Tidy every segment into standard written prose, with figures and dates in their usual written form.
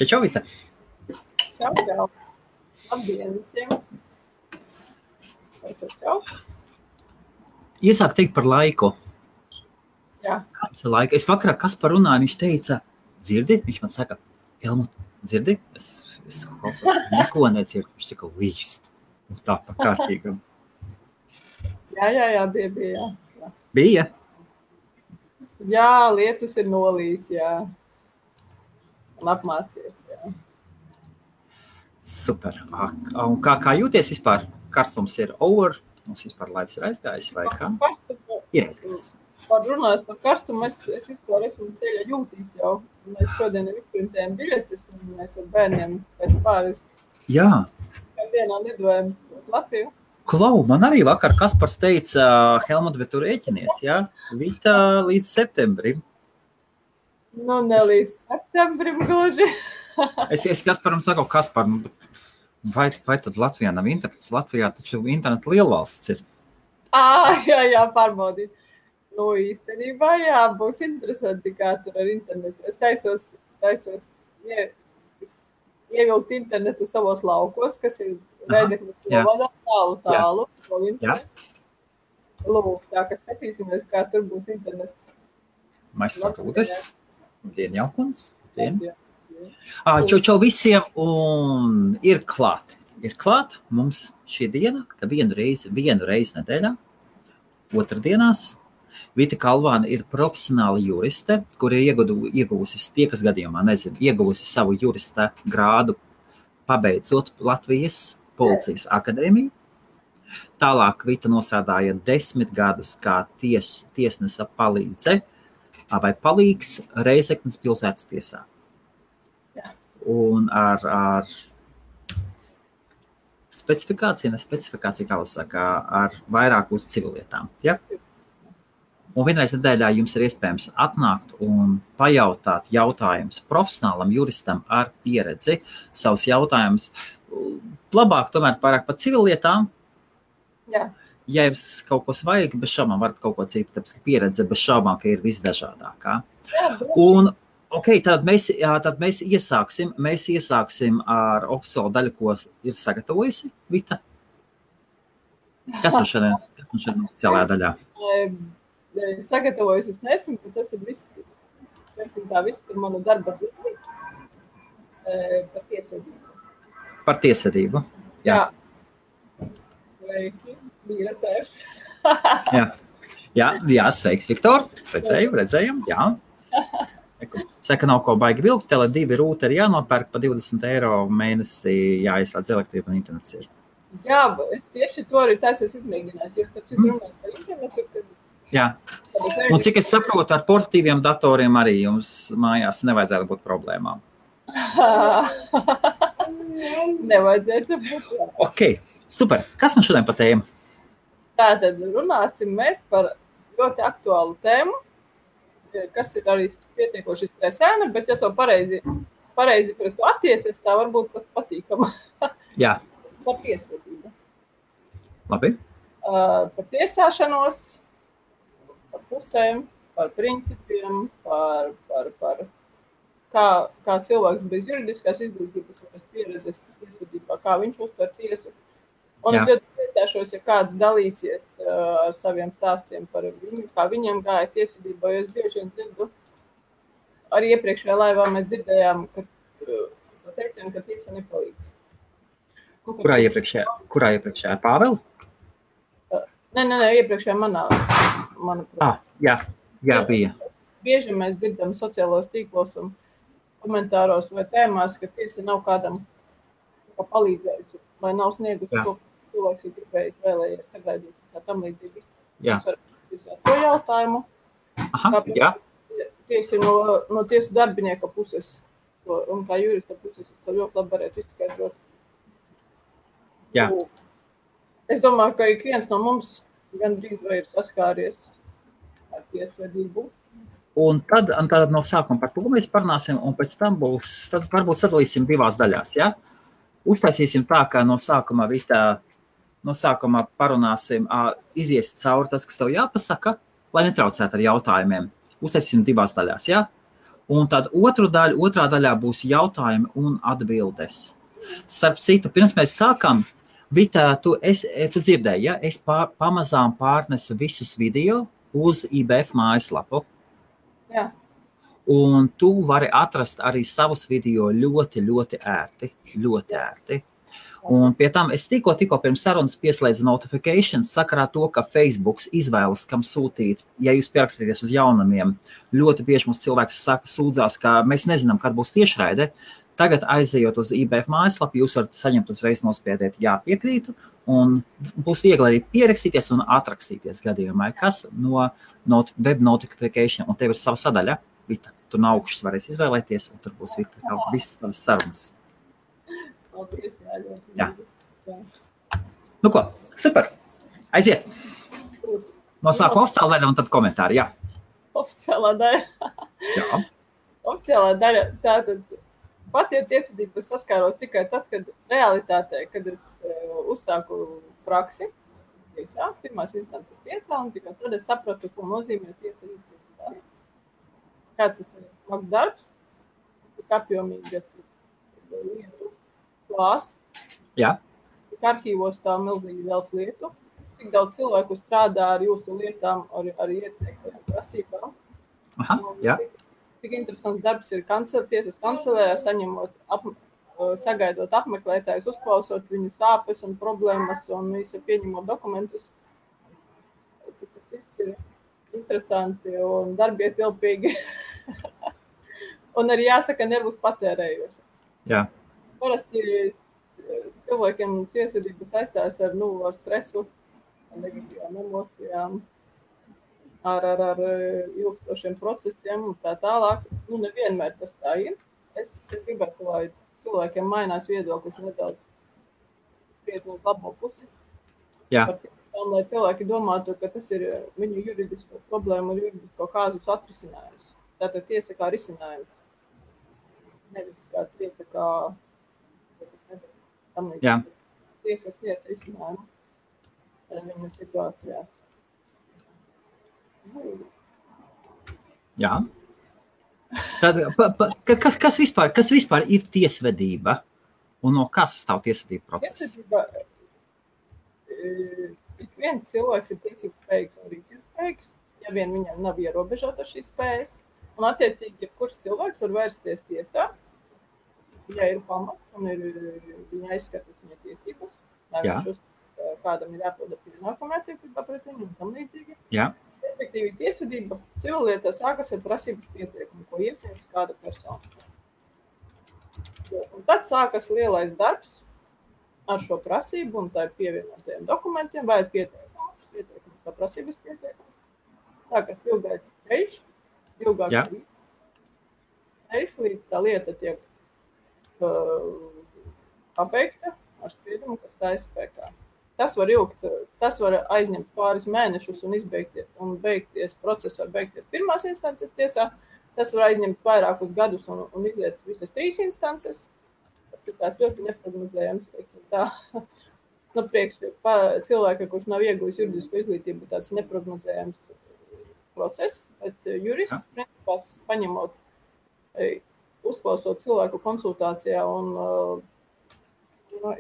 Čau, Vita. Čau. Labdien visiem. Čau. Iesāk teikt par laiku. Jā. Kāds ir laika? Es vakarā Kaspar runāju, viņš teica, dzirdi? Viņš man saka, Helmut, dzirdi? Es klausos, neko nedzirdu. Viņš saka, līst. Un tā pa kārtīgam. Jā, bija. Bija? Jā, lietus ir nolīs, jā. Un apmācies, jā. Super. Un kā jūties vispār? Karstums ir over? Mums vispār laiks ir aizgājis vai kā? Ir aizgājis. Par runāt par karstumu, es vispār esmu ceļa jūtīs jau. Mēs šodien ir izprintējam biļetes un mēs ar bērniem pēc pāris. Jā. Dienā lidojam Latviju. Klau, man arī vakar Kaspars teica, Helmut, bet tu rēķinies, jā? Vita līdz septembrim. Nu, ne līdz septembrim gluži. Es Kasparam saku, Kaspar, vai tad Latvijā nav internets? Latvijā taču interneta lielvalsts ir. Jā, pārbaudīt. Nu, īstenībā, jā, būs interesanti, kā tur ar internetu. Es taisos ievilkt internetu savos laukos, kas ir Reizeknes novadā, tālu. Lūk, tā, ka skatīsimies, kā tur būs internets. Maistro Rūdes, dien jaukums. Čau visiem, un ir klāt. Ir klāt mums šī diena, ka vienu reizi nedēļā, otrdienās, Vita Kalvāne ir profesionāla juriste, kur ir ieguvusi, tie, kas gadījumā nezinu, ieguvusi savu jurista grādu, pabeidzot Latvijas Policijas akadēmiju. Tālāk Vita nosādāja 10 gadus kā tiesnesa palīdze vai palīgs Reizeknes pilsētas tiesā. Jā. Un ar specifikāciju, kā jūs saka, ar vairāk uz civilietām. Ja? Un vienreiz nedēļā jums ir iespējams atnākt un pajautāt jautājumus profesionālam juristam ar pieredzi, savus jautājumus. Labāk tomēr pārāk par civilietām. Jā. Ja jums kaut ko vajag, bez šaubām varat kaut ko citu, tāpēc, ka pieredze bez šaubām, ka ir visdažādākā. Un, tad mēs iesāksim ar oficiālu daļu, ko ir sagatavojusi Vita. Kas man šodien oficiālajā daļā? Sagatavojusi es nesmu, bet tas ir viss par manu darba dzīvi. Par tiesvedību. Par tiesvedību, jā. Sveiki, biratērs. Jā, sveiks, Viktor. Redzējam, jā. Saka, nav ko baigi vilkt, Tele2 rūteri jānopērk pa 20 eiro mēnesī, jāizslēdz elektrība un internets ir. Jā, es tieši to arī taisos izmēģināt, jo starp citu runāt par internetu, kad... Jā, un cik es saprotu, ar portatīviem datoriem arī jums mājās nevajadzētu būt problēmām. Nevajadzētu būt. Ok, super. Kas man šodien pa tēmu? Tātad runāsim mēs par ļoti aktuālu tēmu, kas ir arī pietiekoši stresēna, bet ja to pareizi pret to attiecies, tā varbūt pat patīkama. Jā. Par tiesvedību. Labi. Par tiesāšanos, par pusēm, par principiem, par kā cilvēks bez juridiskās izglītības un bez pieredzes tiesvedībā, kā viņš uztver tiesu. Un es ļoti priecāšos, ja kāds dalīsies ar saviem stāstiem par viņu, kā viņiem gāja tiesvedībā, jo es bieži vien dzirdu, arī iepriekšējā laivā mēs dzirdējām, ka teicām, ka tiesa nepalīdz. Kurā iepriekšējā? Pāvela? Nē, iepriekšējā manuprāt. Jā, bija. Bieži mēs dzirdam sociālos tīklos un komentāros vai tēmās, ka tiesa nav kādam palīdzējusi, vai nav sniegusi to, ko cilvēks ir gribējis, vēlējies sagaidīt, kā tam līdzīgi. Jā. Mēs varam izsāt to jautājumu. Jā. Tieši no tiesu darbinieka puses, un kā jurista puses, es to ļoti labi varētu izskaidrot. Jā. Es domāju, ka ik viens no mums gandrīz vai ir saskāries ar tiesvedību. Un tad no sākuma par to mēs parunāsim, un pēc tam tad varbūt sadalīsim divās daļās, ja? Uztaisīsim tā, ka no sākuma parunāsim, izies cauri tas, kas tev jāpasaka, lai netraucētu ar jautājumiem. Uztaisīsim divās daļās, ja? Un tad otrā daļā būs jautājumi un atbildes. Starp citu, pirms mēs sākam, Vita, tu dzirdēji, ja? Es pamazām pārnesu visus video uz IBF mājaslapu. Jā. Un tu vari atrast arī savus video ļoti, ļoti ērti. Un pie tam es tikko pirms sarunas pieslēdzu notifications sakarā to, ka Facebooks izvēlas, kam sūtīt, ja jūs pierakstīties uz jaunumiem. Ļoti bieži mums cilvēks sūdzās, ka mēs nezinām, kad būs tiešraide. Tagad aizejot uz IBF mājaslapu, jūs varat saņemt uzreiz nospiediet jā, piekrītu, un būs viegli arī pierakstīties un atrakstīties gadījumā, kas no web notification, un tev ir sava sadaļa, Vita, tu no augšas varēs izvēlēties, un tur būs Vita, visas tavas sarunas. Jā. Nu ko, super. Aiziet. No sākuma oficiāla daļa un tad komentāri, jā. Oficiālā daļa. Jā. Oficiālā daļa, tātad pati ar tiesvedību saskāros tikai tad, kad realitātē, kad es uzsāku praksi tiesā, pirmās instances tiesā, un tikai tad es sapratu, ko nozīmē tiesvedību. Kāds tas ir smags darbs, tik apjomīgas lietu klāsts. Jā. Tik arhīvos tā milzīgi daudz lietu. Cik daudz cilvēku strādā ar jūsu lietām, ar iesniegtajām prasībām. Aha, jā. Tik interesants darbs ir tiesas kancelējā, sagaidot apmeklētājus, uzklausot viņu sāpes un problēmas un visu pieņemot dokumentus. Cik tas viss ir interesanti un darbietilpīgi. Un arī jāsaka nervus patērējoši. Jā. Parasti cilvēkiem tiesvedību saistās ar stresu, ar negatīvām emocijām, ar ilgstošiem procesiem un tā tālāk. Nevienmēr tas tā ir. Es gribētu, lai cilvēkiem mainās viedoklis nedaudz krietni uz labo pusi. Jā. Lai cilvēki domātu, ka tas ir viņu juridisko problēmu un juridisko kāzus atrisinājums. Tātad tiesa kā risinājums. Nevis kā tiesa kā Jā. Tiesas lietas risinājumu viņu situācijās. Jā. Tad, kas vispār ir tiesvedība? Un no kā sastāv tiesvedība process? Tiesvedība, ik viens cilvēks ir tiesības spējīgs un rīcības spējīgs, ja vien viņam nav ierobežota šīs spējas. Un attiecīgi, kurš cilvēks var vērsties tiesā, ja ir pamats un viņa aizskatas viņa tiesības, kādam ir jāpilda pienākumi attiecībā pret viņu un tam līdzīgi. Jā. Efektīvi tiesvedība civillietā sākas ar prasības pieteikumu, ko iesniedz kāda persona. Un tad sākas lielais darbs ar šo prasību un tā ir pievienotajiem dokumentiem vai pieteikums vai prasības pieteikums. Sākas ilgais ceļš, ilgāks ceļš, līdz tā lieta tiek pabeigta ar spriedumu, kas stājas spēkā. Tas var aizņemt pāris mēnešus un beigties process var beigties pirmās instances tiesā. Tas var aizņemt vairākus gadus un iziet visas 3 instances. Tas ir tās ļoti neprognozējams, teiksim tā. Priekš cilvēka, kurš nav iegūjis juridisko izglītību, tāds neprognozējams process, bet jurists, principā, paņemot, uzklausot cilvēku konsultācijā un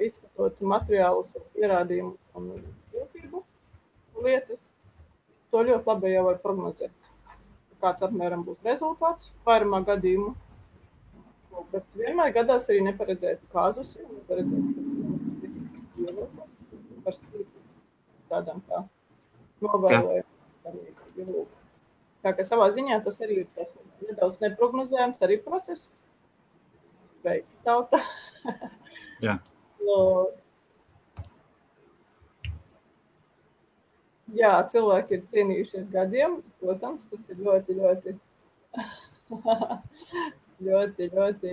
izskatot materiālus, pierādījumus un jūtību lietas, to ļoti labi jau var prognozēt. Kāds apmēram būs rezultāts vairumā gadījumu. Bet vienmēr gadās arī neparedzētu kāzus, neparedzētu par tādām kā novēlējumu. Tā kā savā ziņā tas arī ir tas nedaudz neprognozējams, arī process. Beigti tauta. Jā. Jā, cilvēki ir cienījušies gadiem, protams, tas ir ļoti, ļoti, ļoti, ļoti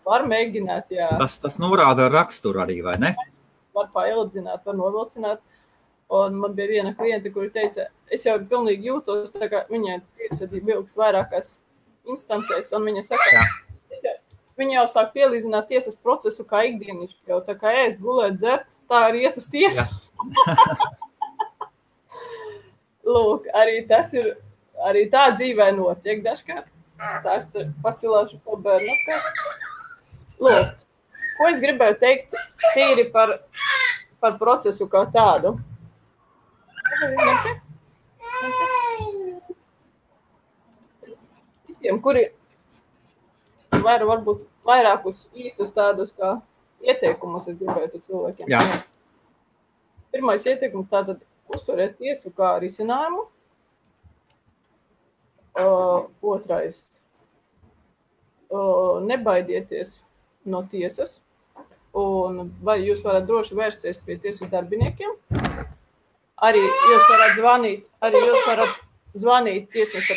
var mēģināt, jā. Tas norāda raksturu arī, vai ne? Var paildzināt, var novilcināt. Un man bija viena kliente, kuri teica, es jau pilnīgi jūtos, tā kā viņai tiesvedība ilgs vairākās instancēs, un viņa saka, viņa jau sāk pielīdzināt tiesas procesu kā ikdienišķi, jau tā kā ēst, gulēt, dzert, tā arī iet uz tiesu. Lūk, arī tā dzīvē notiek dažkārt. Tā es pacilāšu pa bērnu. Lūk, ko es gribēju teikt tīri par procesu kā tādu. Visiem, kuri var varbūt vairākus īstus tādus kā ieteikumus, es gribētu cilvēkiem. Jā. Pirmais ieteikums tātad uzturēt tiesu kā risinājumu. Otrais, nebaidieties no tiesas, un vai jūs varat droši vērsties pie tiesu darbiniekiem. Arī jūs varat zvanīt tiesneša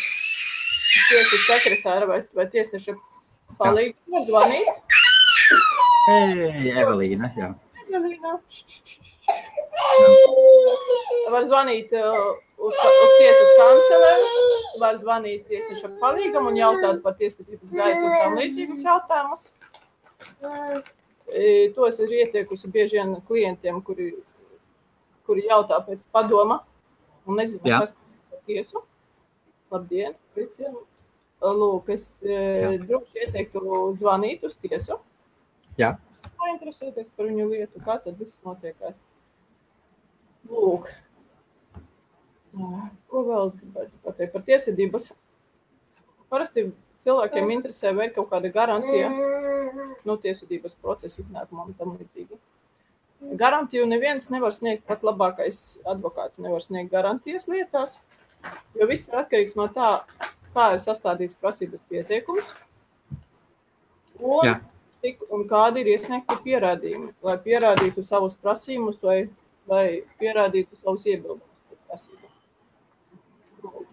sekretāra vai tiesneša palīgu var zvanīt. Evelīna, jā. Evelīna. Var zvanīt uz tiesas kancelēm, var zvanīt tiesneša palīgam un jautāt par tiesvedības gaitu un tam līdzīgus jautājumus. To es esmu ieteikusi bieži vien klientiem, kuri jautā pēc padoma un nezinu, kas par tiesu. Labdien visiem! Lūk, es droši ieteiktu zvanīt uz tiesu. Jā. Interesēties par viņu lietu, kā tad viss notiekās. Lūk. Ko vēl es gribētu pateikt par tiesvedības? Parasti cilvēkiem interesē, vai ir kaut kāda garantija no tiesvedības procesa iznākumam tam līdzīgi. Garantiju neviens nevar sniegt, pat labākais advokāts nevar sniegt garantijas lietās, jo viss ir atkarīgs no tā, kā ir sastādīts prasības pieteikums un kādi ir iesniegti pierādījumi, lai pierādītu savus prasījumus vai pierādītu savus iebildumus par prasību.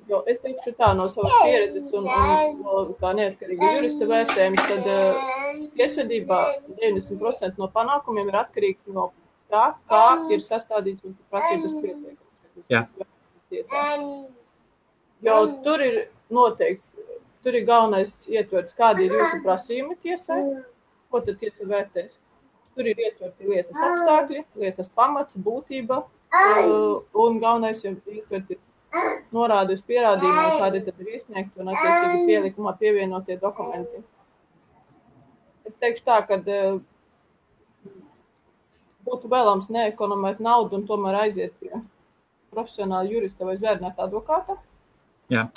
Jo es teikšu tā no savas pieredzes un kā neatkarīga jurista vērtējums, tad tiesvedībā 90% no panākumiem ir atkarīgs no tā, kā ir sastādīts jūsu prasības pieteikums. Jā. Jo tur ir noteikts, tur ir galvenais ietverts, kādi ir jūsu prasījumi tiesai, ko tad tiesa vērtēs. Tur ir ietverti lietas apstākļi, lietas pamats, būtība un galvenais ir ietverti norādi uz pierādījumiem, kādi tad ir iesniegti un attiecīgi pielikumā pievienotie dokumenti. Es teikšu tā, ka būtu vēlams neekonomēt naudu un tomēr aiziet pie profesionāla jurista vai zvērnēta advokāta. Jā.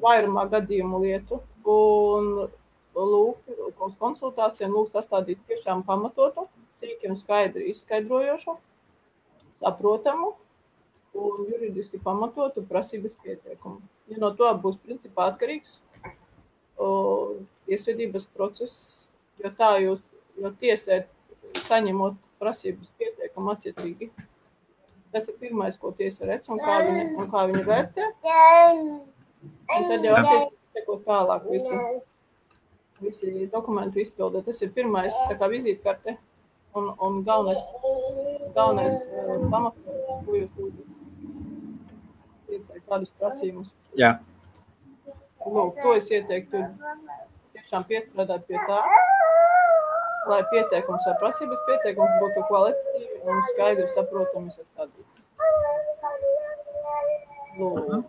Vairumā gadījumu lietu un lūk uz konsultācijām sastādīt tiešām pamatotu, cīki un skaidri izskaidrojošu, saprotamu un juridiski pamatotu prasības pieteikumu. Ja no to būs principā atkarīgs tiesvedības process, jo tiesē saņemot prasības pieteikumu attiecīgi. Tas ir pirmais, ko tiesa redz un kā viņa vērtē. Un tad jau attiecīgi sekot tālāk visi dokumentu izpilde. Tas ir pirmais tā kā vizītkarte un galvenais pamatojums, ko jūs lūdzat. Tiesai kādus prasījumus. Jā. Lūk, to es ieteiktu tiešām piestrādāt pie tā, lai pieteikums vai prasības pieteikums būtu kvalitatīvi un skaidri saprotami sastādīts. Lūk.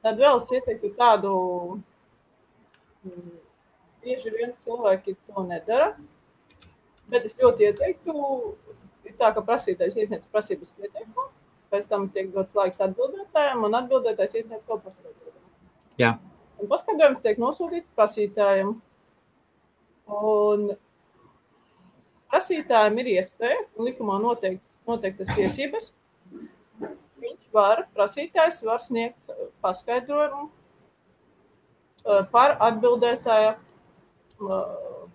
Tad vēl es ieteiktu tādu, bieži vien cilvēki to nedara, bet es ļoti ieteiktu, ir tā, ka prasītājs iesniedz prasības pieteikumu, pēc tam tiek dots laiks atbildētājiem, un atbildētājs iesniedz savu paskaidrojumu. Jā. Un paskaidrojums tiek nosūtīts prasītājiem. Un prasītājiem ir iespēja, un likumā noteiktas tiesības. Prasītājs var sniegt paskaidrojumu par atbildētāja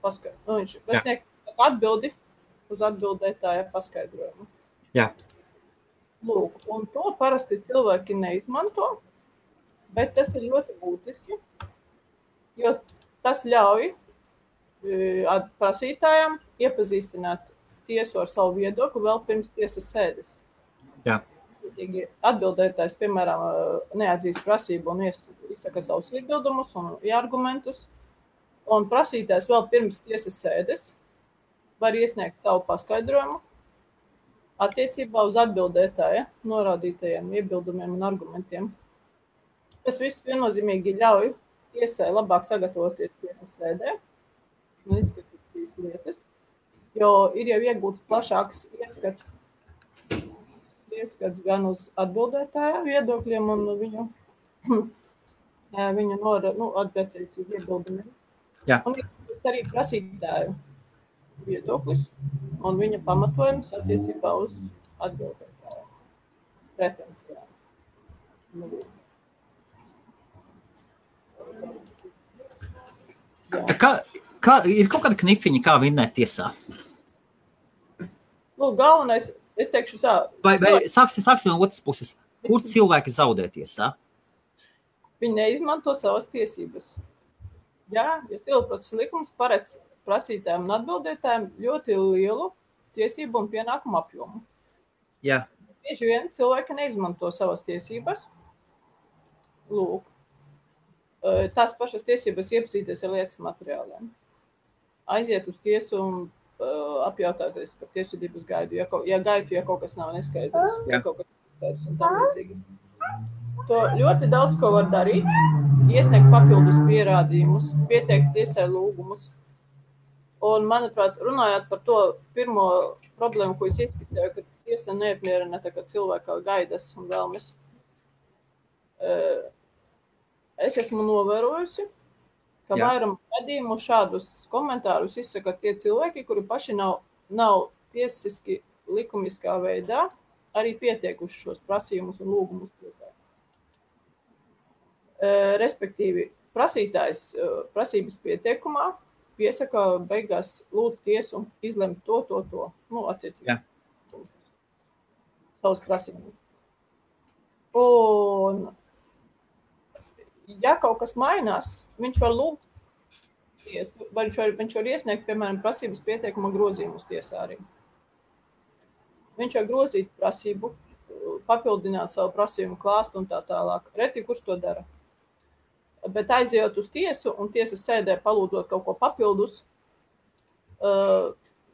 paskaidrojumu. Viņš var sniegt atbildi uz atbildētāja paskaidrojumu. Jā. Lūk, un to parasti cilvēki neizmanto, bet tas ir ļoti būtiski, jo tas ļauj prasītājiem iepazīstināt tiesu ar savu viedokli vēl pirms tiesas sēdes. Jā. Atbildētājs, piemēram, neatzīst prasību un izsaka savus iebildumus un argumentus, un prasītājs vēl pirms tiesas sēdes var iesniegt savu paskaidrojumu, attiecībā uz atbildētāja norādītajiem iebildumiem un argumentiem. Tas viss viennozīmīgi ļauj tiesai labāk sagatavoties tiesas sēdē un izskatīt šīs lietas, jo ir jau iegūts plašāks ieskats gan uz atbildētāja viedokļiem un viņu attiecīgi iebildumiem. Jā. Un ir arī prasītāju viedoklis un viņa pamatojums attiecībā uz atbildētāju pretensijām. Ir kaut kāda knifiņa, kā vinnēt tiesā? Galvenais, es teikšu tā. Vai sāksim no otras puses. Kur cilvēki zaudē tiesā? Viņi neizmanto savas tiesības. Ja civilprocesa likums paredz prasītājiem un atbildētājiem ļoti lielu tiesību un pienākumu apjomu. Jā. Bieži vien cilvēki neizmanto savas tiesības. Lūk. Tās pašas tiesības iepazīties ar lietas materiāliem. Aiziet uz tiesu un apjautāties par tiesvedības gaidu, ja kaut kas nav neskaidrs, ja kaut kas neskaidrs un tam līdzīgi. To ļoti daudz ko var darīt, iesniegt papildus pierādījumus, pieteikt tiesai lūgumus. Un, manuprāt, runājot par to pirmo problēmu, ko es izskatēju, ka tiesa neapmierina cilvēka gaidas un vēlmes, es esmu novērojusi, ka vairam gadījumu šādus komentārus izsaka tie cilvēki, kuri paši nav tiesiski likumiskā veidā arī pieteikuši šos prasījumus un lūgumus tiesai. Respektīvi, prasītājs prasības pieteikumā piesaka beigās lūdz tiesu izlemt to, attiecīgi. Savus prasības. Un, ja kaut kas mainās, viņš var lūgt tiesu, vai viņš var iesniegt, piemēram, prasības pieteikuma grozījumus tiesā arī. Viņš var grozīt prasību, papildināt savu prasījumu klāstu un tā tālāk. Reti, kurš to dara. Bet aizejot uz tiesu un tiesas sēdē palūdzot kaut ko papildus,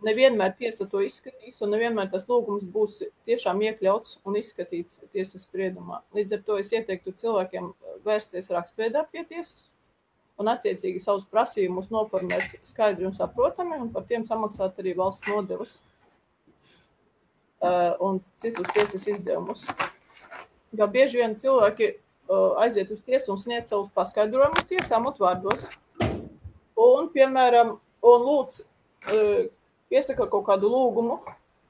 nevienmēr tiesa to izskatīs un nevienmēr tas lūgums būs tiešām iekļauts un izskatīts tiesas spriedumā. Līdz ar to es ieteiktu cilvēkiem vērsties rakstveidā pie tiesas un attiecīgi savus prasījumus noformēt skaidri un saprotami un par tiem samaksāt arī valsts nodevus un citus tiesas izdevumus. Jo bieži vien cilvēki aiziet uz tiesu un sniedz savus paskaidrojumus tiesām utvārdos. Un, piemēram, lūdz piesaka kaut kādu lūgumu,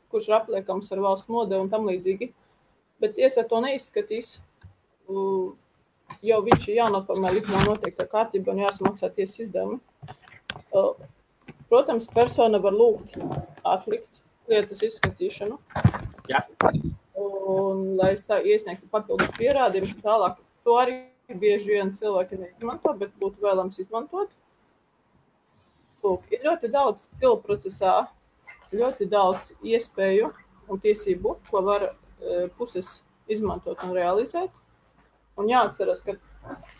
kurš ir apliekams ar valsts nodevu un tam līdzīgi, bet tiesa to neizskatīs, jo viņš ir jānoformē likumā noteikta kārtība un jāsamaksā tiesas izdevumi. Protams, persona var lūgt atlikt lietas izskatīšanu. Jā. Un, lai iesniegtu papildus pierādījumus tālāk, to arī bieži vien cilvēki neizmanto, bet būtu vēlams izmantot. Lūk, ir ļoti daudz civilprocesā, ļoti daudz iespēju un tiesību, ko var puses izmantot un realizēt. Un jāatceras, ka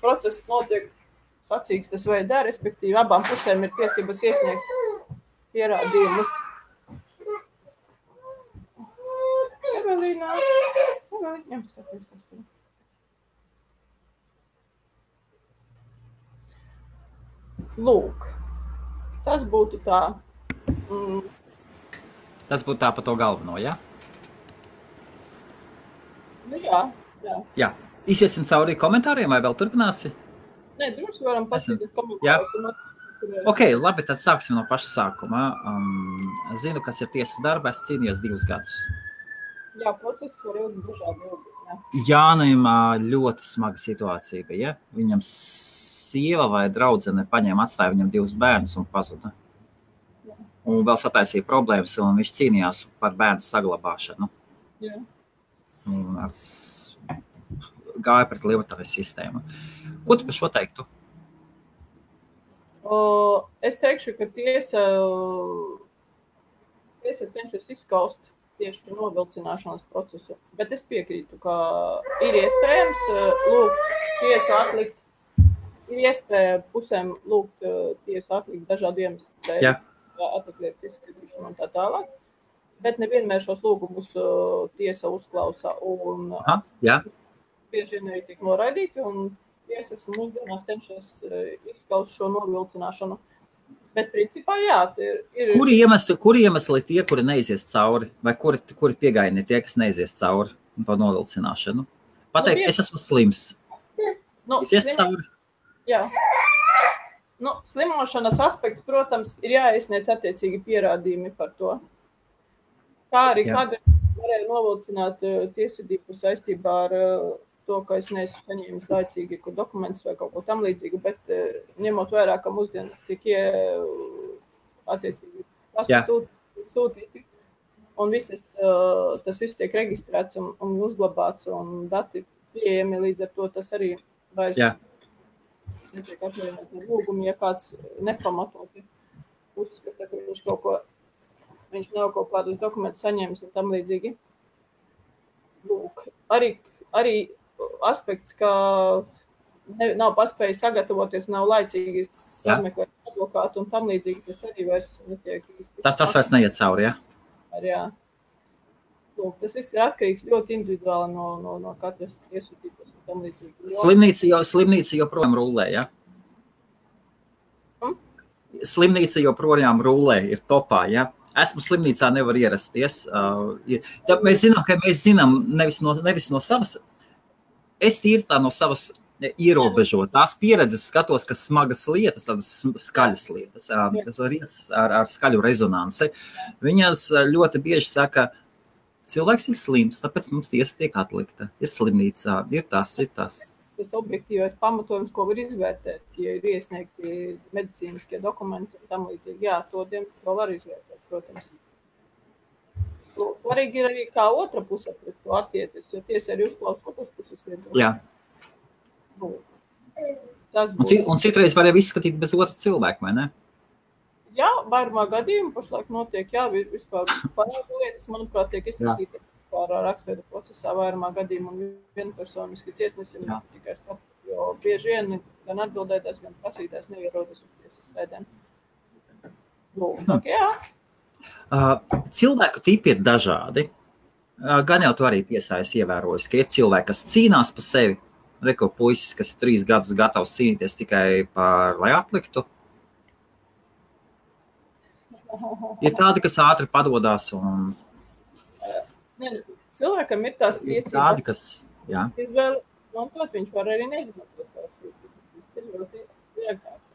process notiek sacīkstes veidā, respektīvi abām pusēm ir tiesības iesniegt pierādījumus. Evelīna, ņemskaties tas. Lūk, tas būtu tā. Tas būtu tā par to galveno, ja? Jā. Jā. Iziesim cauri komentāriem, vai vēl turpināsi? Nē, droši varam pasīties komentārus. Ok, labi, tad sāksim no paša sākuma. Zinu, kas ir tiesas darba, es cīnījos 2 gadus. Jā, process var ilgi dažādi ilgi. Jānim ļoti smaga situācija bija. Viņam sieva vai draudzene paņēma, atstāja viņam 2 bērnus un pazuda. Un vēl sataisīja problēmas, un viņš cīnījās par bērnu saglabāšanu. Jā. Un gāja pret lietotāju sistēmu. Ko tu par šo teiktu? Es teikšu, ka tiesa cenšas izskaust tieši novilcināšanas procesu. Bet es piekrītu, ka ir iespējams lūgt tiesu atlikt, ir iespēja pusēm lūgt tiesu atlikt dažādu iemeslu dēļ, atlikt lietas izskatīšanu un tā tālāk. Bet nevienmēr šos lūgumus tiesa uzklausa un bieži vien arī tiek noraidīti, un tiesas mūsdienās cenšas izskaust šo novilcināšanu. Bet principā, jā, ir... Kuri iemesli tie, kuri neizies cauri, vai kuri piegaini tie, kas neizies cauri pa novilcināšanu? Pateikt, es esmu slims. Izies cauri? Jā. Slimošanas aspekts, protams, ir jāiesniedz attiecīgi pierādījumi par to. Kā arī kādreiz varēja novilcināt tiesvedību saistībā ar to, ka es neesmu saņēmis laicīgi dokumentus vai kaut ko tam līdzīgu, bet ņemot vērā, ka mūsdien tiek attiecīgi sūtīti, un tas viss tiek reģistrēts un uzglabāts, un dati pieejami, līdz ar to tas arī vairs netiek atvienot ar lūgumu, ja kāds nepamatoti uzskata, ka viņš nav kaut kādus dokumentus saņēmis un tam līdzīgi. Lūk, arī aspekts, ka nav paspējis sagatavoties, nav laicīgi sameklēt advokātu un tam līdzīgi, tas arī vairs netiek īsti. Tas vairs neiet cauri, ja? Jā. Lūk, tas viss ir atkarīgs ļoti individuāli no katras tiesvedības un tam līdzīgi. Slimnīca joprojām rulē, ja? Slimnīca joprojām rulē, ir topā, ja? Esmu slimnīcā, nevar ierasties. Mēs zinām nevis no savas, es tīri tā no savas ierobežotās pieredzes skatos, ka smagas lietas, tādas skaļas lietas, ar skaļu rezonansi. Viņas ļoti bieži saka, cilvēks ir slims, tāpēc mums tiesa tiek atlikta. Ir slimnīcā, ir tas. Tas objektīvais pamatojums, ko var izvērtēt, ja ir iesniegti medicīniskie dokumenti un tam līdzīgi. Jā, to diemžēl var izvērtēt, protams. Svarīgi ir arī kā otra puse pret to attiecies, jo tiesa arī uzklausa otras puses viedokli. Jā. Un citreiz var jau izskatīt bez otra cilvēka, vai ne? Jā, vairumā gadījumu pašlaik notiek, vispār parādu lietas, manuprāt, tiek izskatīti par rakstveidu procesā vairumā gadījumu un vienpersoniski tiesnesim tikai skatu, jo bieži vien gan atbildētājs, gan prasītājs neierodas uz tiesas sēdēm. Jā. Cilvēku tipi ir dažādi. Gan jau tu arī tiesā esi ievērojis, ka ir cilvēki, kas cīnās par sevi. Reko puisis, kas ir 3 gadus gatavs cīnīties tikai lai atliktu. Ir tādi, kas ātri padodās un... Cilvēkam ir tās tiesības. Tādi, kas, jā. Mantot, viņš var arī neizmantot tās tiesības. Tas ir ļoti vienkārši.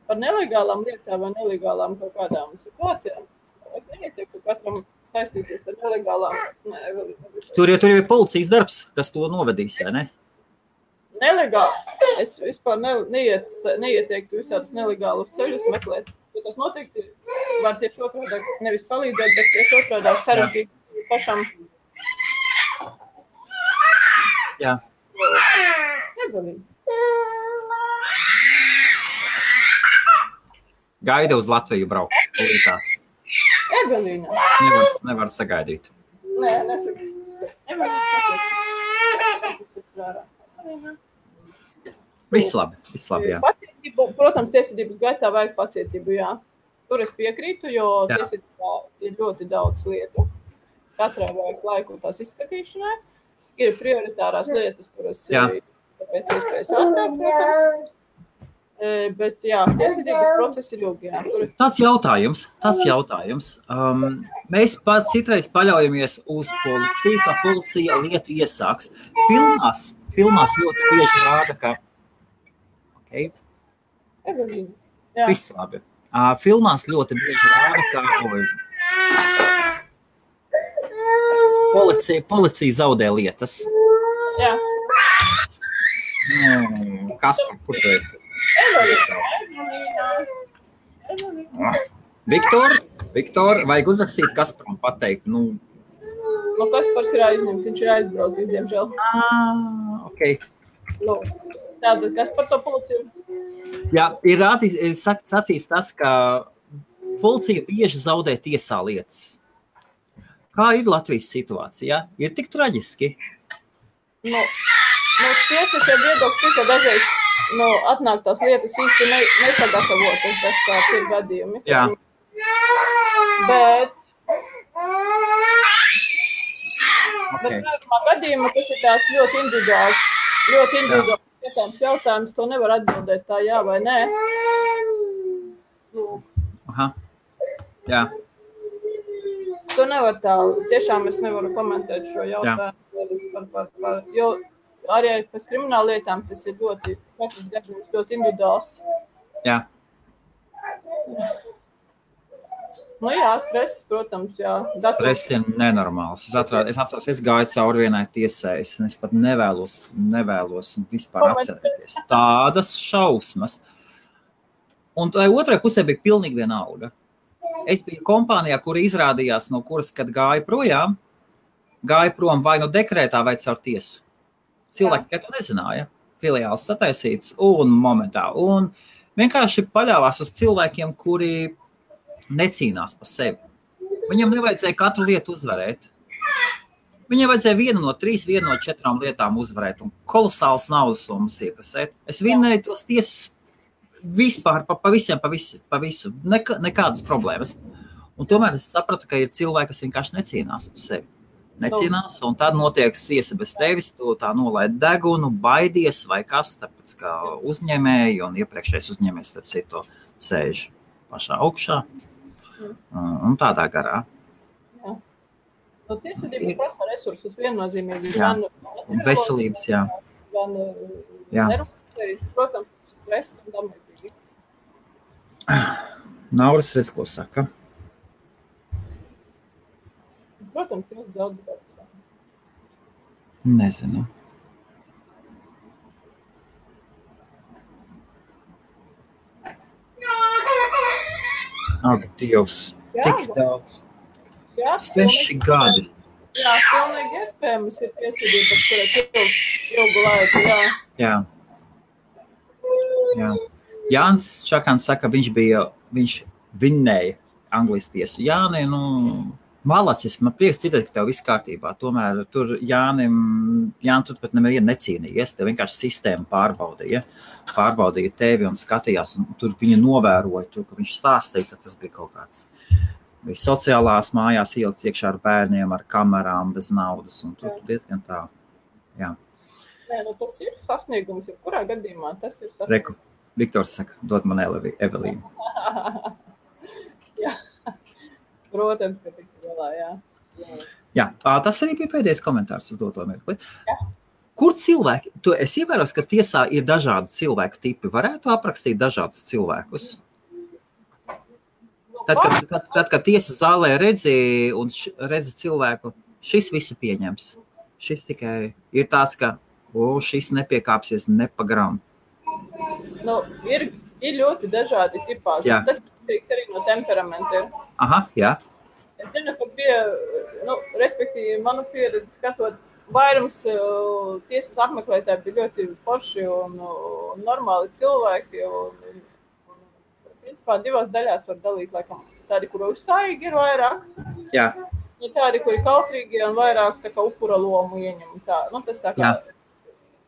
Par nelegālām lietām vai nelegālām kaut kādām situācijām. Es neieteiktu katram saistīties ar nelegālām. Tur ir policijas darbs, kas to novedīs, vai ne? Nelegāli. Es vispār neieteiktu visādus nelegālus ceļus meklēt. Jo tas noteikti var tieši otrādā nevis palīdzēt, bet tieši otrādā sarežģīt pašam. Jā. Negalīgi. Gaida uz Latviju brauks. Evelīna. Nevar sagaidīt. Nē, nesagaidīt. Evelīna skaties. Viss labi, jā. Pacietību, protams, tiesvedības gaitā vajag pacietību, jā. Tur es piekrītu, jo tiesvedībā ir ļoti daudz lietu. Katrai vajag laiku tās izskatīšanai. Ir prioritārās lietas, kuras ir pēc iespējas ātrāk, protams. Bet jā, tiesvedības process ir ilgi. Tāds jautājums. Mēs citreiz paļaujamies uz policiju, ka policija lietu iesāks. Filmās ļoti bieži rāda, ka... Viss labi. Filmās ļoti bieži rāda, ka... Policija zaudē lietas. Jā. Kaspar, kur tu esi? Viktor, vajag uzrakstīt Kasparam pateikt. Kaspars ir aizņemts, viņš ir aizbraucis, diemžēl. Ok. Tātad, kas par to policiju? Jā, ir sacīts tāds, ka policija bieži zaudē tiesā lietas. Kā ir Latvijas situācija? Ir tik traģiski? Tiesas jau viedoklis, ka dažreiz atnāk tās lietas īsti nesagatavotas, dažkārt ir gadījumi. Jā. Bet Bet vairumā gadījumā tas ir tāds ļoti individuāls jautājums. To nevar atbildēt tā jā vai nē. Aha. Jā. To nevar tā. Tiešām es nevaru komentēt šo jautājumu. Jo arī pēc krimināla lietām tas ir katrs gadījums ļoti individuāls. Jā. Nu jā, stress, protams, jā. Stress ir nenormāls. Es atceros, es gāju cauri vienai tiesai, es pat nevēlos vispār atcerēties. Tādas šausmas. Un tai otrai pusē bija pilnīgi vienalga. Es biju kompānijā, kura izrādījās, no kuras, kad gāja prom vai no dekrētā vai caur tiesu. Cilvēki, ka to nezināja, filiāls sataisīts un momentā. Un vienkārši paļāvās uz cilvēkiem, kuri necīnās par sevi. Viņam nevajadzēja katru lietu uzvarēt. Viņam vajadzēja vienu no 3, vienu no 4 lietām uzvarēt un kolosāls naudas summas iekasēt. Es vinnēju tos tiesas vispār pa visu. Nekādas problēmas. Un tomēr es sapratu, ka ir cilvēki, kas vienkārši necīnās par sevi. Necīnās, un tad notiek tiesa bez tevis, tu tā nolaid degunu, baidies vai kas, tāpēc kā uzņēmēji un iepriekšējais uzņēmējs, starp citu, sēž pašā augšā un tādā garā. Jā. No tiesvedība prasa resursus viennozīmīgi. Jā, un veselības, jā. Gan nerūpēs, protams, stress un damētīgi. Nauras redz, ko saka. Protams, jūs daudz darbā. Nezinu. Ak, Dievs, tik daudz. 6 gadi. Jā, pilnīgi iespējams ir tiesvedības, kurai ilgu laiku, jā. Jānis Čakans saka, viņš vinnēja Anglijas tiesu. Jāni, malacis, man prieks dzirdēt, ka tev viss kārtībā. Tomēr tur Jānim tur pat nevienu necīnījies, tev vienkārši sistēma pārbaudīja tevi un skatījās, un tur viņa novēroja, tur, ka viņš stāstīja, ka tas bija kaut kāds. Bija sociālās mājās ielikts iekšā ar bērniem, ar kamerām, bez naudas, un tur diezgan tā, jā. Nē, tas ir sasniegums, kurā gadījumā tas ir sasniegums. Reku, Viktors saka, dod man Evelīnu. Jā. Protams, ka tik galā, jā. Jā, tas arī bija pēdējais komentārs uz doto mirkli. Jā. Kur cilvēki, tu esi ievērojis, ka tiesā ir dažādu cilvēku tipi, varētu aprakstīt dažādus cilvēkus? Tad, kad tiesas zālē redzi cilvēku, šis visu pieņems. Šis tikai ir tāds, ka šis nepiekāpsies ne pa gramu. Ir ļoti dažādi tipāži. Jā. Tas arī no temperamenta ir. Aha, jā. Es zinu, ka bija, respektīvi, manu pieredzi skatot, vairums tiesas apmeklētāji bija ļoti forši un normāli cilvēki. Principā 2 daļās var dalīt, laikam, tādi, kuri uzstājīgi ir vairāk. Jā. Ja tādi, kuri kautrīgi un vairāk tā kā upura lomu ieņem. Tas tā kā,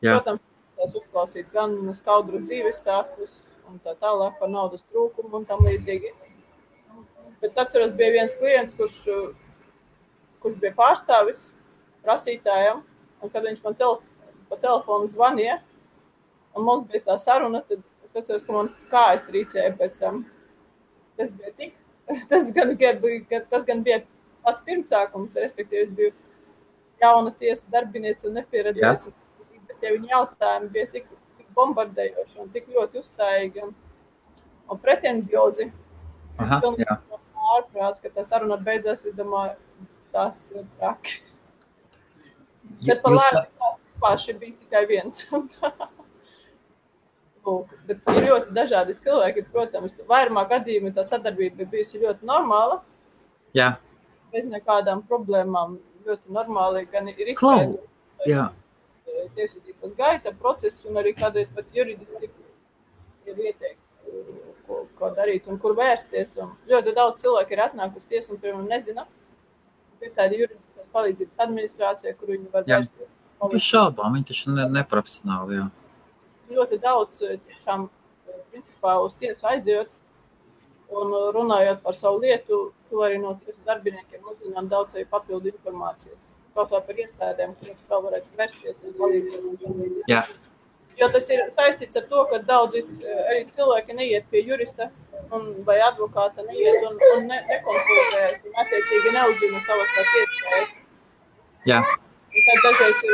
protams, tās uzklausīt gan skaudru dzīves stāstus un tā tālāk par naudas trūkumu un tam līdzīgi. Bet atceros, bija viens klients, kurš bija pārstāvis prasītājam, un kad viņš man pa telefonu zvanīja, un mums bija tā saruna, tad es atceros, ka man kājas trīcēja pēc tam. Tas gan bija pats pirmsākums, respektīvi, es biju jauna tiesa darbiniece un nepieredzējusi. Bet ja viņa jautājumi bija tik bombardējoši un tik ļoti uzstājīgi un pretenziozi. Aha, jā. Ārprāts, ka tā saruna beidzās, es domāju, tas ir traki. Bet par lēmu bijis tikai viens. Bet ir ļoti dažādi cilvēki, protams, vairumā gadījumā tā sadarbība bija bijusi ļoti normāla. Jā. Bez nekādām problēmām ļoti normāli, gan ir izskaidrot tiesvedības gaita procesu un arī kādreiz pat juridiski ir ieteikts, ko darīt un kur vērsties. Un ļoti daudz cilvēku ir atnākusi tiesu un pirmam nezina. Ir tāda juridiskās palīdzības administrācija, kur viņi var vērsties. Tas šaubām, viņi taču neprofesionāli, jā. Ļoti daudz tiešām principā uz tiesu aizjot un runājot par savu lietu, to arī no tiesu darbiniekiem uzzināt daudz arī papildu informācijas. Kaut kā par iestādēm, kuras tā varētu vērsties un palīdzēt. Jā. Jo tas ir saistīts ar to, ka daudzi arī cilvēki neiet pie jurista vai advokāta, neiet un nekonsultējas, un attiecīgi neuzzina savas tās iespējas. Jā. Un tad dažreiz ir...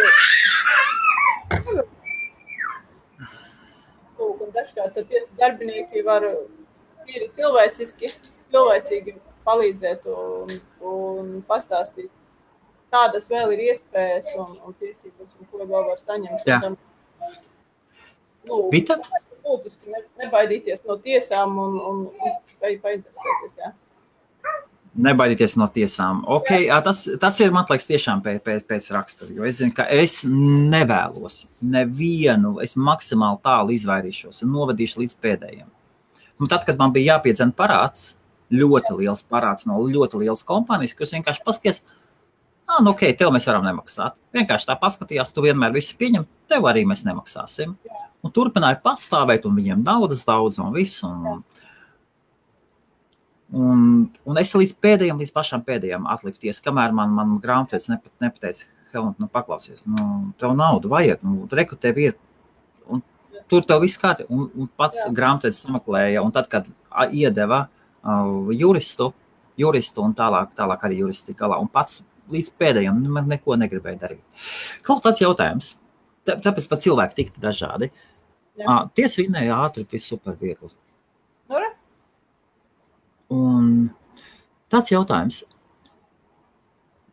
Un dažkārt tad tiesu darbinieki var tīri cilvēcīgi palīdzēt un pastāstīt, kādas vēl ir iespējas un tiesības, un ko vēl var saņemt. Jā. Vita? Būtiski nebaidīties no tiesām un painteresēties, jā. Nebaidīties no tiesām. Ok, tas ir, man liekas, tiešām pēc rakstura, jo es zinu, ka es nevēlos nevienu, es maksimāli tālu izvairīšos un novadīšu līdz pēdējiem. Un tad, kad man bija jāpiedzen parāds, ļoti liels parāds no ļoti lielas kompānijas, kas vienkārši paskaties, nu ok, tev mēs varam nemaksāt. Vienkārši tā paskatījās, tu vienmēr visu pieņem, tev arī mēs nemaksāsim. Un turpināja pastāvēt, un viņiem naudas daudz un visu. Un es līdz pašām pēdējām atlikties, kamēr man grāmatvedis nepateica, Helmut, paklausies, tev naudu vajag, reku tev ir. Un tur tev viss kādi. Un pats grāmatvedis sameklēja, un tad, kad iedeva juristu un tālāk arī juristi galā, un pats līdz pēdējiem neko negribēja darīt. Kaut tāds jautājums, tāpēc pat cilvēki tik dažādi. Tiesa vinēja ātri, viss super viegli. Un tāds jautājums.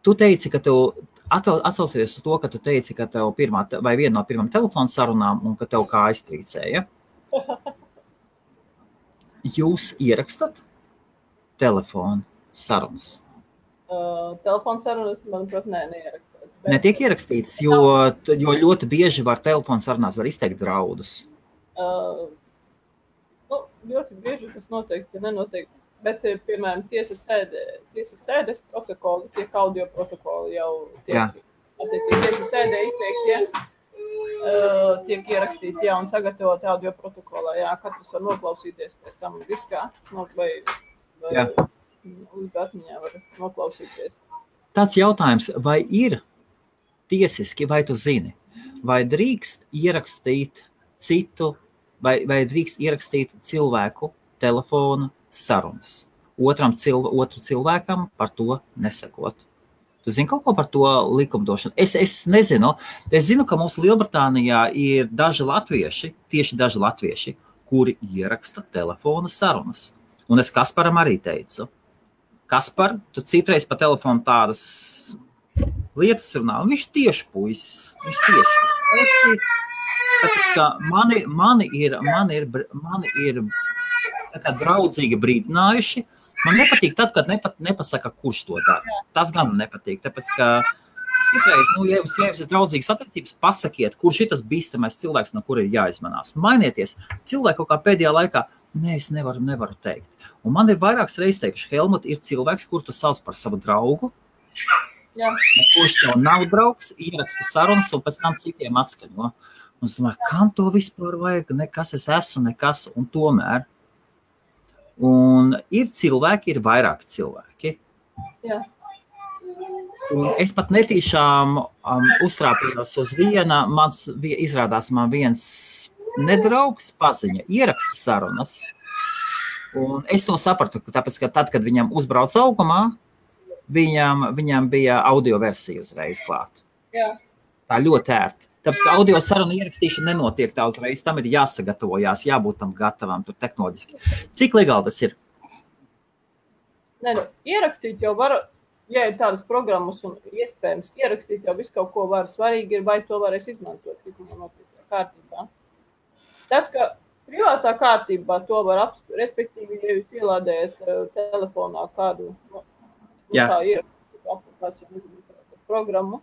Tu teici, ka tev atsaucies uz to, ka tu teici, ka tev viena no pirmām telefonu sarunām un ka tev kā aiztrīcēja. Jūs ierakstat telefonu sarunas? Telefonu sarunas, manuprāt, neierakstās. Netiek ierakstītas, jo ļoti bieži telefonu sarunās var izteikt draudus. Ļoti bieži tas noteikti nenotiek. Bet, piemēram, tiesas sēdes protokoli, tiek audio protokoli jau tiek, attiecīgi, tiesas sēdē izteikti, tiek ierakstīti, un sagatavot audio protokolā, katrs var noklausīties pēc tam diskā, vai uz atmiņā var noklausīties. Tāds jautājums, vai ir tiesiski, vai tu zini, vai drīkst ierakstīt citu, vai drīkst ierakstīt cilvēku telefonu sarunas. Otru cilvēkam par to nesakot. Tu zini kaut ko par to likumdošanu? Es nezinu. Es zinu, ka mums Lielbritānijā ir daži latvieši, kuri ieraksta telefona sarunas. Un es Kasparam arī teicu. Kaspar, tu citreiz pa telefonu tādas lietas runā. Viņš tieši puisis. Tāpēc, ka mani ir tā draudzīgi brīdinājuši. Man nepatīk tad, kad nepasaka, kurš to dara. Tas gan nepatīk, tāpēc, ka citreiz, ja jums ir draudzīgas attiecības, pasakiet, kurš ir tas bīstamais cilvēks, no kura ir jāizmanās. Mainieties. Cilvēku kaut kā pēdējā laikā, es nevaru teikt. Un man ir vairākas reizes teikuši, Helmut, ir cilvēks, kur tu sauc par savu draugu, kurš tev nav draugs, ieraksta sarunas un pēc tam citiem atskaņo. Un es domāju, kam to vispār vajag? Nekas es esmu, nekas, un tomēr. Un ir vairāki cilvēki. Jā. Un es pat netīšām uztrāpījos uz izrādās man viens nedraugs paziņa, ieraksta sarunas. Un es to sapratu, tāpēc, ka tad, kad viņam uzbrauc augumā, viņam bija audio versija uzreiz klāt. Jā. Tā ļoti ērti. Tāpēc, ka audio saruna ierakstīšana nenotiek tā uzreiz, tam ir jāsagatavojās, jābūt tam gatavam, tur tehnoloģiski. Cik legāli tas ir? Ierakstīt jau var, ja ir tādas programmas un iespējams, ierakstīt jau visu kaut ko var. Svarīgi ir, vai to varēs izmantot kārtībā. Tas, ka privātā kārtībā to var apspriest, respektīvi, ja jūs ielādējat telefonā kādu kā ierakstīt programmu,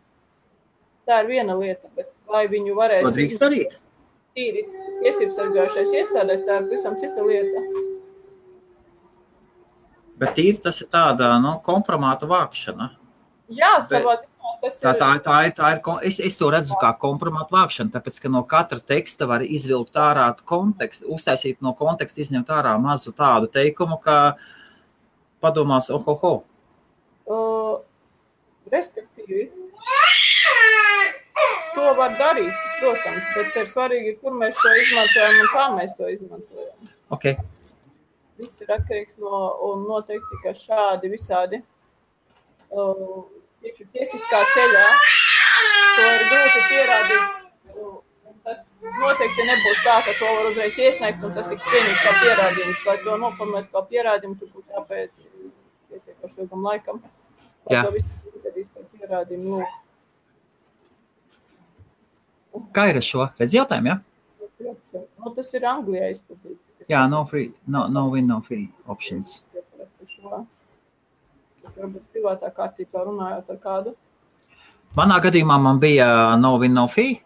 tā ir viena lieta, bet vai viņu varēs... To drīkst darīt? Tīri tiesības sargājušais iestādēs, tā ir visam cita lieta. Bet tīri tas ir tāda, kompromāta vākšana. Jā, savā ziņā tas ir... Es to redzu kā kompromāta vākšana, tāpēc, ka no katra teksta var izvilkt ārā kontekstu, uztaisīt no konteksta, izņemt ārā mazu tādu teikumu, ka padomās, ohoho. Respektīvi, to var darīt, protams, bet ir svarīgi, kur mēs to izmantojam un kā mēs to izmantojam. Okay. Viss ir atkarīgs un noteikti, ka šādi visādi tiesiskā ceļā to ir grūti pierādīt. Tas noteikti nebūs tā, ka to var uzreiz iesniegt un tas tiks pieņemts kā pierādījums. Lai to noformēt kā pierādījumu, tur būs jāpēc pietiekoši ilgam laikam. Lai to visu izdarīs par pierādījumu. Kā ir ar šo? Redz jautājumu, ja? Tas ir Anglijā izplatīts. Jā, no win, no fee options. Tas varbūt privātā kārtībā runājot ar kādu. Manā gadījumā man bija no win, no fee.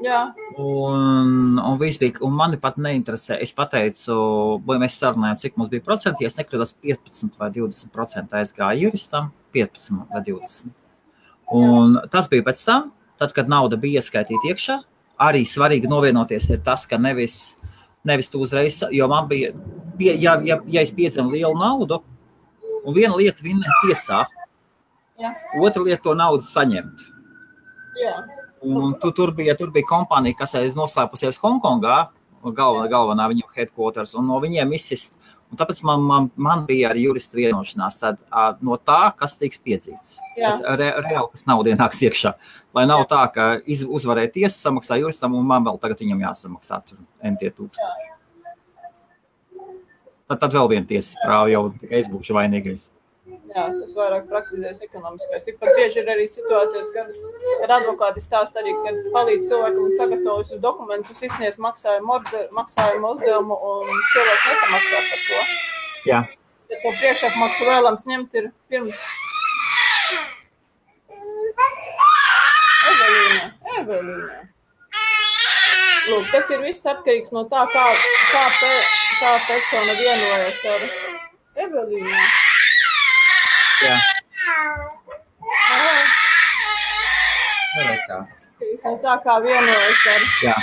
Jā. Un viss bija, un mani pat neinteresē. Es pateicu, vai mēs sarunājām, cik mums bija procenti, ja es nekļūdos 15 vai 20% aizgāja juristam, 15 vai 20. Un tas bija pēc tam, tad, kad nauda bija ieskaitīta iekšā, arī svarīgi novienoties ir tas, ka nevis tu uzreiz, jo man bija, ja es piedzinu lielu naudu, un viena lieta vinnēt tiesā, otra lieta to naudu saņemt. Jā. Un tur bija kompānija, kas aiz noslēpusies Hongkongā, galvenā viņu headquarters, un no viņiem izsist. Un tāpēc man bija arī juristu vienošanās tad, no tā, kas tiks piedzīts. Reāli, kas nauda ienāks iekšā. Lai nav tā, ka uzvarēja tiesa, samaksā juristam, un man vēl tagad viņam jāsamaksā tur MT 1000. Tad vēl viena tiesas prāva jau tikai es būšu vainīgais. Jā, tas vairāk praktizēs ekonomiskais. Tikpat bieži ir arī situācijas, kad advokāti stāsta arī, kad palīdz cilvēkam un sagatavojas dokumentus, izsniedz maksājumu uzdevumu un cilvēks nesamaksā par to. Jā. Ja to priekšapmaksu vēlams ņemt ir pirms... Evelīna. Lūk, tas ir viss atkarīgs no tā, kā persona vienojas ar Evelīnu. Jā. Tā kā vienojas ar... Jā.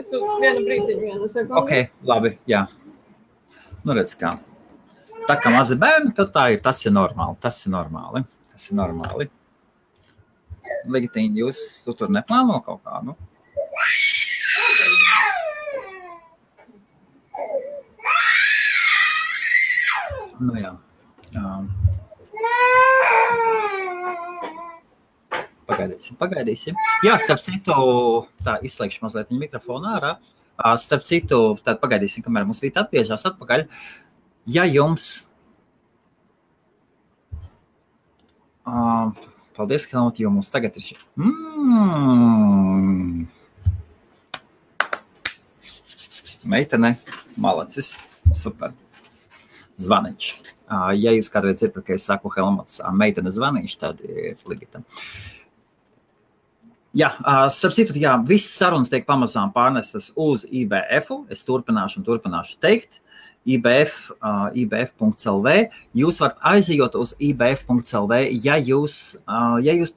Es vienu brītiņu sekundi. Ok, labi, jā. Nu redz kā. Tā kā mazi bērni, tad tā ir, tas ir normāli. Legitīni, jūs tur neplāno kaut kā, nu? Nu jā. Pagaidīsim. Jā, starp citu, tā izslēgšu mazliet viņa mikrofonu ārā. Starp citu, tad pagaidīsim, kamēr mums Vīta atgriežās atpakaļ. Ja jums... Paldies, Helmut, jo mums tagad ir Meitene, malacis, super. Zvaniņš. Ja jūs kādreiz dzirdat, ka es saku Helmuts, meitene zvaniņš, tad ir Ligita. Jā, starp citu, jā, visas sarunas tiek pamazām pārnestas uz IBF-u. Es turpināšu teikt. IBF.lv. Jūs varat aizejot uz IBF.lv, ja jūs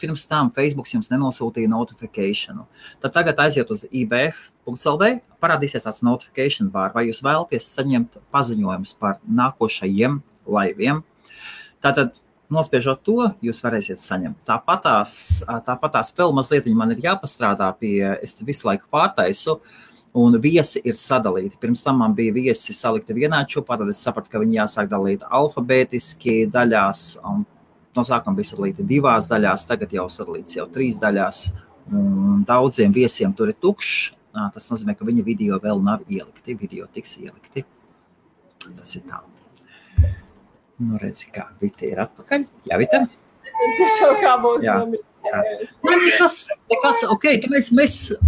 pirms tam Facebooks jums nenosūtīja notifikāciju. Tad tagad aiziet uz IBF.lv, parādīsies tāds notification bar, vai jūs vēlaties saņemt paziņojumus par nākošajiem laiviem. Tātad, nospiežot to, jūs varēsiet saņemt. Tāpatās vēl mazliet man ir jāpastrādā pie, es visu laiku pārtaisu, un viesi ir sadalīti. Pirms tam man bija viesi salikti vienā čupā, tad es sapratu, ka viņi jāsāk dalīt alfabētiski daļās, un no sākuma bija sadalīti 2 daļās, tagad jau sadalīts jau 3 daļās, un daudziem viesiem tur ir tukšs. Tas nozīmē, ka viņa video vēl nav ielikti, video tiks ielikti. Tas ir tā. Nu, redzi, kā Vita ir atpakaļ. Jā, Vita? Tiešām kā būs. Jā. Nekas, ok, mēs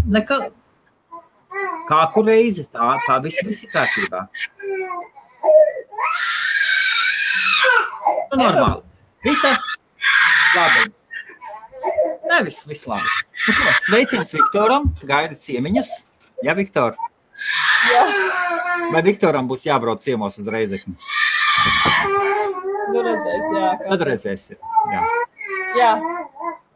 nekā... Kā kur reizi, tā viss ir kārtībā. Nu, normāli. Vita, labi. Nē, viss labi. Sveiciens Viktoram, gaida ciemiņas. Jā, Viktor? Jā. Vai Viktoram būs jābrauc ciemos uz Reizekni? Nu, redzēs, jā. Tad redzēsi, jā. Jā.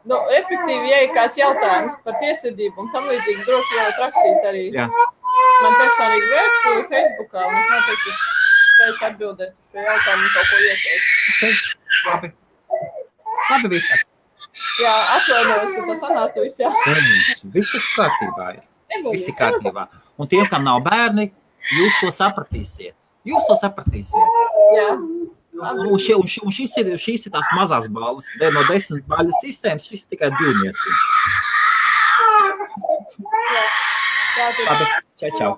Nu, respektīvi, ja ir kāds jautājums par tiesvedību un tam līdzīgi, droši varat rakstīt arī man personīgi vēstuli Facebookā, un es noteikti spējuši atbildēt uz šo jautājumu un kaut ko ieteikt. Okay. Labi, Vita. Jā, atvainojos, ka tas sanāca viss, jā. Viss ir kārtībā. Viss ir kārtībā. Un tiem, kam nav bērni, jūs to sapratīsiet. Jā. Un šīs ir tās mazās balvas. No 10 baļu sistēmas šis ir tikai 2. Jā. Labi, čau.